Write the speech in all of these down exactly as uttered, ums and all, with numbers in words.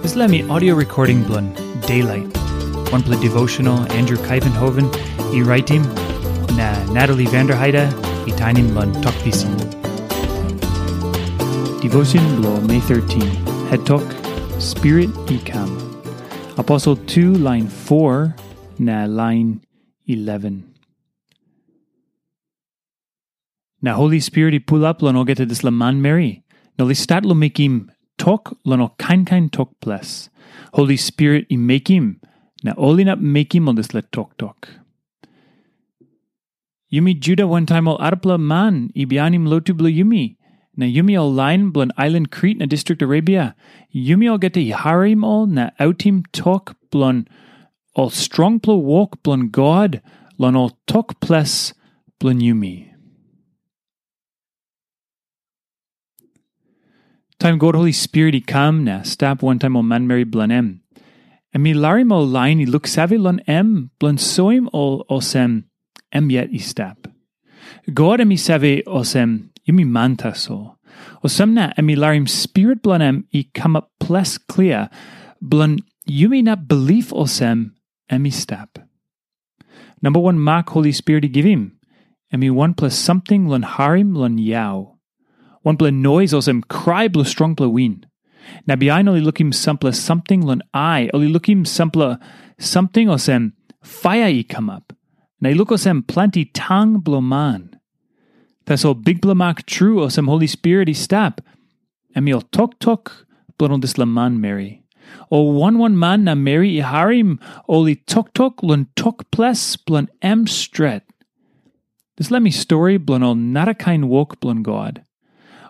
Dispela mi audio recording bilong Daylight, wanpela devotional Andrew Kaivenhoven i raitim, na Natalie Vanderheide i tainim long Tok Pisin. Devotion bilong May thirteen, het tok, Spirit i kam. Aposel tu lain four na lain eleven. Na Holi Spirit i pulap long olgeta dispela manmeri, na ol i stat long mekim tok long ol kain kain tok ples. Holi Spirit i mekim, na ol inap mekim ol dispela toktok. Yumi Juda wantaim ol arapela man i bihainim lotu bilong yumi, na yumi ol lain bilong ailan Krit na distrik Arabia, yumi olgeta i harim ol na autim tok bilong ol strongpela wok bilong God long ol tok ples bilong yumi. Taim God Holi Spirit i kam na stap wantaim ol manmeri bilong em, em i larim ol lain i luksave long em bilong soim ol olsem em yet i stap. God em i save olsem yumi man tasol. Olsem na em i larim Spirit bilong em i kamap ples klia bilong yumi inap bilip olsem em i stap. Namba wan mak Holi Spirit i givim, em i wanpela samting long harim long yau. Wanpela nois olsem krai bilong strongpela win. Na bihain ol i lukim sampela samting long ai, ol i lukim sampela samting olsem paia i kamap. Na i luk olsem planti tang bilong man. Tasol bikpela mak tru olsem Holi Spirit i stap, em i ol toktok bilong ol dispela manmeri. Ol wan wan man na meri i harim ol i toktok long tok ples bilong em stret. Dispela mi stori bilong ol narakain wok bilong God.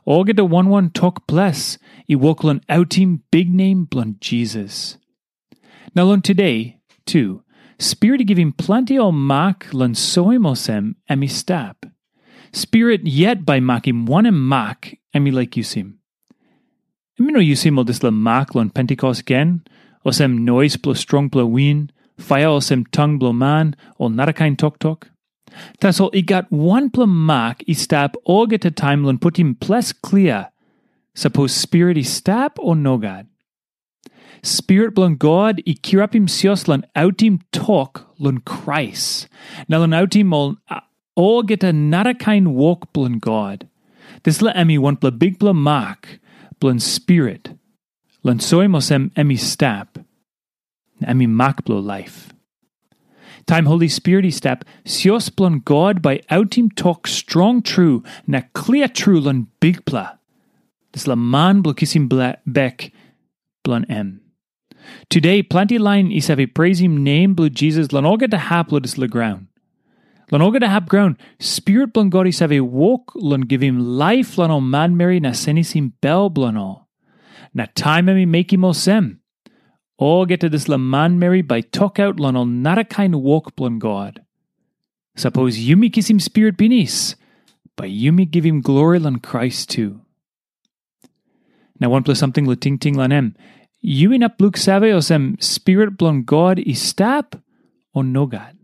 Olgeta wan wan tok ples i wok long autim biknem bilong Jisas. Na long tude, tu, Spirit i givim planti ol mak long soim olsem em i stap. Spirit yet bai makim wanem mak em i laik yusim. Em i no yusim ol dispela mak long Pentikos gen, olsem nois bilong strongpela win, paia olsem tang bilong man, o narakain toktok. Tasol i gat wanpela mak i stap olgeta taim long putim ples klia, sapos Spirit i stap o nogat. Spirit bilong God i kirapim sios long autim tok long Krais, na long autim ol olgeta narakain wok bilong God. Dispela em i wanpela bikpela mak bilong Spirit, long soim olsem em i stap, na em i mak bilong laip. Taim Holi Spirit i stap, sios bilong God bai autim tok strong tru na klia tru long Bikpela, dispela man bilong kisim bek bilong em. Tude planti lain i save preisim nem bilong Jisas long olgeta hap long dispela graun. Long olgeta hap graun, Spirit bilong God i save wok long givim laip long ol manmeri na senisim bel bilong ol. Na taim em i mekim olsem, olgeta dispela manmeri bai tokaut long ol narakain wok bilong God. Sapos yumi kisim Spirit pinis, bai yumi givim glori long Krais tu. Na wanpela samting long tingting long em, yu inap luksave olsem Spirit bilong God i stap, o nogat?